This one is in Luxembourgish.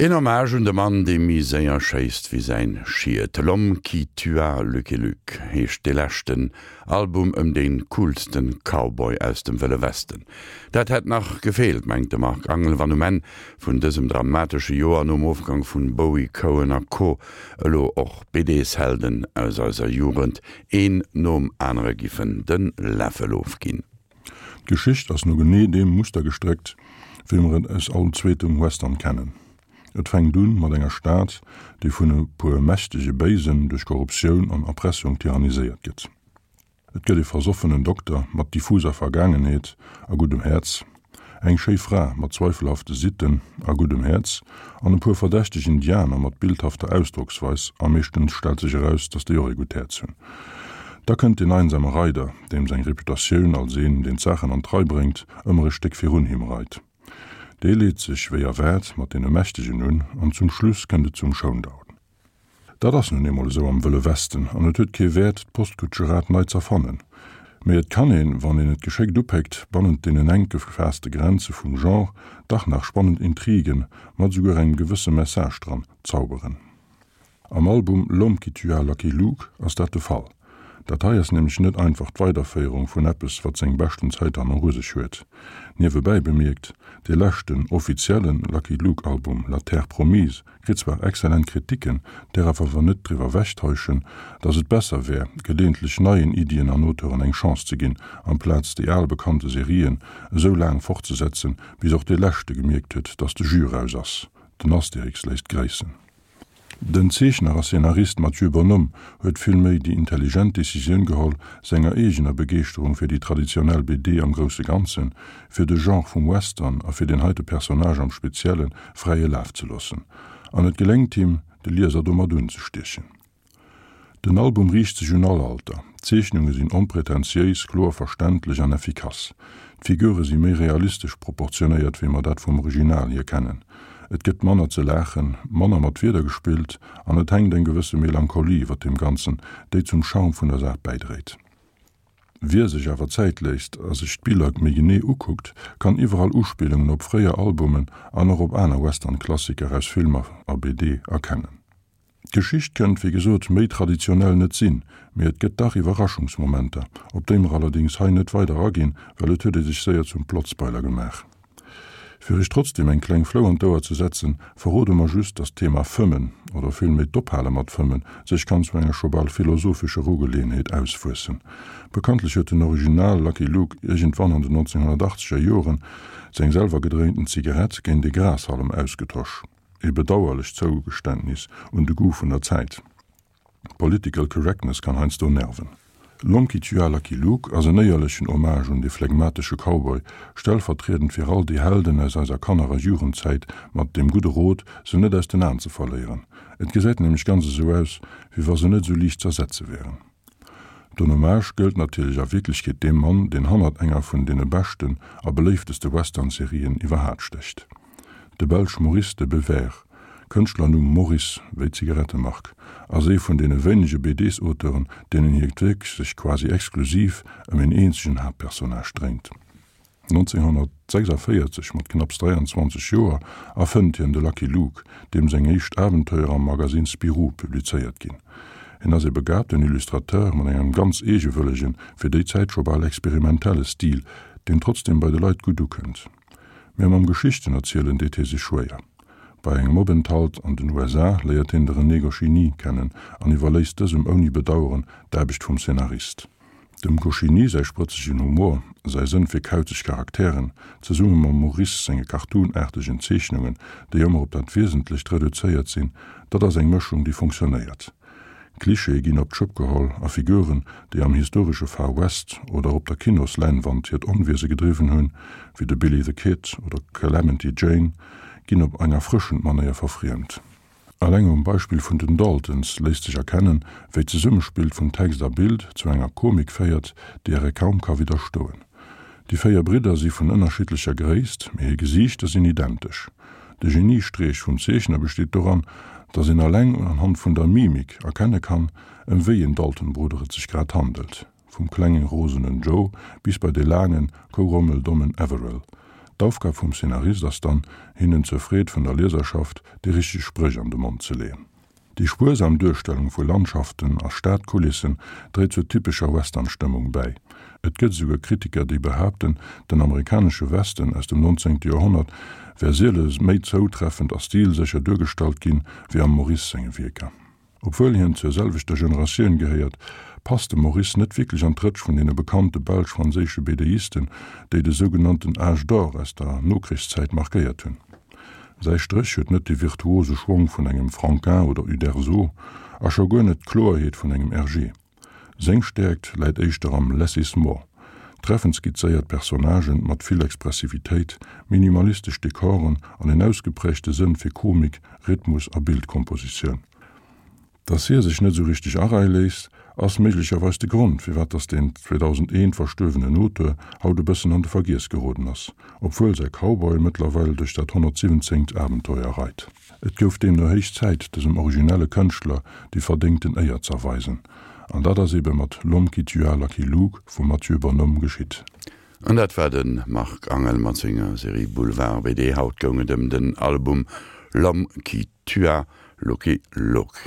Een Hommage un de Mann, dee méi séier schéisst wéi säin Schiet. L'homme qui tua Lucky Luke heescht dee leschten Album ëm dee coolsten Cowboy aus dem Wëlle Westen. Dat hätt nach gefeelt, mengt de Marc Angel, wann um Enn vun dësem dramatesche Joer nom Ofgang vun Bowie, Cohen a Co. Elo och BDs-Helden aus eiser Jugend een nom anere giffen de Läffel ofginn. D'Geschicht ass no genee deem Muster gestréckt, wéi mer et aus all zweetem Western kennen. Et fänkt un mat enger Stad, déi vun e puer mächtege Béisen duerch Korruptioun an Erpressung tyranniséiert gëtt. Et gëtt e versoffenen Dokter mat diffuser Vergaangenheet a guddem Häerz, eng schéi Fra mat zweifelhafte Sitten a guddem Häerz an e puer verdächteg Indianer mat bildhafter Ausdrocksweis, a meeschtens stellt sech eraus, datt déi och ee gutt Häerz hunn. Da kënnt deen einsame Reider, deem seng Reputatioun als een, deen d'Saachen an d'Rei bréngt, ëmmer e Stéck virun him reit. Dee leet sech, wéi erwaart, mat deene Mächtegen un, an zum Schluss kënnt et zum Showdown. Dat ass nun eemol esou am Wëlle Westen, an et huet kee Wäert, d'Postkutscheraad nei z'erfannen. Mee et kann een, wann een et geschéckt upéckt, bannent deenen enk gefaasste Grenze vum Genre dach nach spannend Intrigen, mat esouguer engem gewësse Message dran, zauberen. Am Album L'homme qui tua Lucky Luke ass dat de Fall. Dat hei ass nämlech net einfach d'Weiderféierung vun eppes, wat seng beschten Zäit hanneru sech huet. Niewebäi bemierkt, dee leschten offizielle Lucky Luke Album La Terre Promise kritt zwar excellent Kritiken, därerf awer net driwwer wechtäuschen, datt et besser wär, geleeëntlech neien Iddien an Auteuren eng Chance ze ginn, amplaz déi al bekannte Serien esou laang fortzesetzen, bis och dee leschte gemierkt huet, datt de Jus raus ass. Den Asterix léisst gréissen. Den Zeechner a Szenarist Mathieu Bonhomme huet villméi déi intelligent Decisioun geholl, senger eegener Begeeschterung fir déi traditionell BD am grousse Ganzen, fir de Genre vum Western a fir deen heite Personnage am Spezielle fräie Laf ze loossen. An et geléngt him, de Lieser domat unzestiechen. Den Album riicht sech un all Alter. D'Zeechnunge sinn onpretentiéis, kloer verständlech an effikass. D'Figure si méi realistesch proportionéiert, wéi mer dat vum Original hier kennen. Et gëtt manner ze laachen, manner mat Wierder gespillt an et hänkt eng gewësse Melancholie iwwer deem Ganzen, déi zum Charme vun der Saach bäidréit. Wie sech awer Zäit léisst a sech d'Biller méi genee ukuckt, kann iwwerall Uspillungen op fréier Albumen an och op aner Western-Klassiker aus Filmer a BD erkennen. D'Geschicht kënnt wéi gesot méi traditionell net sinn, mee et gëtt dach Iwwerraschungsmomenter, op déi mer allerdéngs hei net weider aginn, well et huet ee sech séier zum Plotspoiler gemaach. Fir iech trotzdem eng kleng Flou an d'Ouer ze setzen, verrode mer just, dass d'Thema Fëmmen, oder villméi d'Ophale mat Fëmmen, sech kann zu enger scho bal philosophescher Ugeleeënheet auswuessen. Bekanntlech huet den Original Lucky Luke iergendwann an den 1980er Joren seng selwer gedréinten Zigarett géint ee Grashallem ausgetosch. E bedauerlecht Zougeständnis un de Goût vun der Zäit. Political Correctness kann heiansdo nerven. L'homme qui tua Lucky Luke ass en éierlechen Hommage un dee phlegmatesche Cowboy, stellvertriedend fir all déi Helden aus eiser Kanner a Jugendzäit, mat deem gudde Rot, se net aus den Aen ze verléieren. Et gesäit nämlech ganz esou aus, wéi wa se net esou liicht z'ersetze wären. Den Hommage gëllt natierlech a Wierklechkeet deem Mann, deen hannert enger vun deene beschten a beléifteste Western-Serien iwwerhaat stécht. De Belsch Maurice de Bever, Kënschtlernumm Morris, wéi d'Zigarettemark, ass ee vun deene wéinege BDs-Auteuren, deenen hiert Wierk sech quasi exklusiv ëm een eenzegen Haaptpersonnage dréint. 1946, mat knapps 23 Joer, erfënnt hien de Lucky Luke, deem seng éischt Abenteuer am Magasinn Spirou publizéiert ginn. Hien ass ee begabten Illustrateur mat engem ganz eegewëllegen, fir déi Zäit scho bal experimentelle Stil, deen trotzdeem bei de Leit gutt ukënnt. Mä mam Geschichtenerzielen deet hie sech schwéier. Bei engem Openthalt an den USA léiert hien de René Goscinny kennen an iwwerléisst dësem ouni Bedaueren d'Aarbecht vum Szenarist. Dem Goscinny säi sprëtzegen Humor, säi Sënn fir kauzeg Charakteren, zesumme mam Maurice senge cartoonaartegen Zeechnungen, déi ëmmer op dat Wiesentlecht reduzéiert sinn, dat ass eng Mëschung, déi funktionéiert. Klischeeë ginn op d'Schëpp geholl a Figuren, déi am historesche Far West oder op der Kinosläinwand hiert Onwiese gedriwwen hunn, wéi de Billy the Kid oder d'Calamity Jane, ginn op eng erfrëschend Manéier verfriemt. Alleng um Beispill vun den Daltons léisst sech erkennen, wéi d'Zesummespill vun Text a Bild zu enger Komik féiert, deeër ee kaum ka widderstoen. Déi 4 Bridder si vun ënnerschiddlecher Gréisst, mee hir Gesiichter sinn identesch. De Geniestreech vum Zeechner besteet doran, datt een alleng unhand vun der Mimik erkenne kann, ëm wéi een Dalton-Brudder et sech grad handelt. Vum klengen rosenen Joe bis bei de laangen, kourommel-dommen Averell. D'Aufgab vum Szenarist ass dann, hinnen zur Freed vun der Lieserschaft déi richteg Spréch an de Mond ze leeën. Déi spuersam Duerstellung vu Landschaften a Stadkulissen dréit zur typescher Western-Stëmmung bäi. Et gëtt esouguer Kritiker, déi behaapten, den amerikanesche Westen aus dem 19. Joerhonnert wär siele méi zoutreffend a stilsécher duergestallt ginn, wéi am Maurice senge Wierker. Obwuel hien zur selwechter Generatioun gehéiert, passt de Maurice net wierklech an d'Rëtsch vun deene bekannte belsch-franséische BDisten, déi de sougenannten Âge d'or aus der Nokrichszäit markéiert hunn. Säi Stréch huet net de virtuose Schwong vun engem Franquin oder Uderzo a scho guer net d'Kloerheet vun engem Hergé. Seng Stäerkt läit éischter am Less is more, treffend skizzéiert Personnagen mat vill Expressivitéit, minimalistesch Dekoren an en ausgeprägte Sënn fir Komik, Rhythmus a Bildkompositioun. Dass hie sech net esou richteg areie léisst, ass méiglecherweis de Grond, firwat dass deen 2001 verstuerwenen Auteur haut e bëssen an de Vergiess geroden ass, obwuel säi Cowboy mëttlerweil duerch dat 117. Abenteuer reit. Et gouf deemno héich Zäit, dësem originelle Kënschtler déi verdéngten Éier z'erweisen. An dat ass ebe mat L'homme qui tua Lucky Luke vum Mathieu Bonhomme geschitt. An dat war de Marc Angel mat senger Serie Boulevard BD. Haut goung et ëm den Album L'homme qui tua Lucky Luke.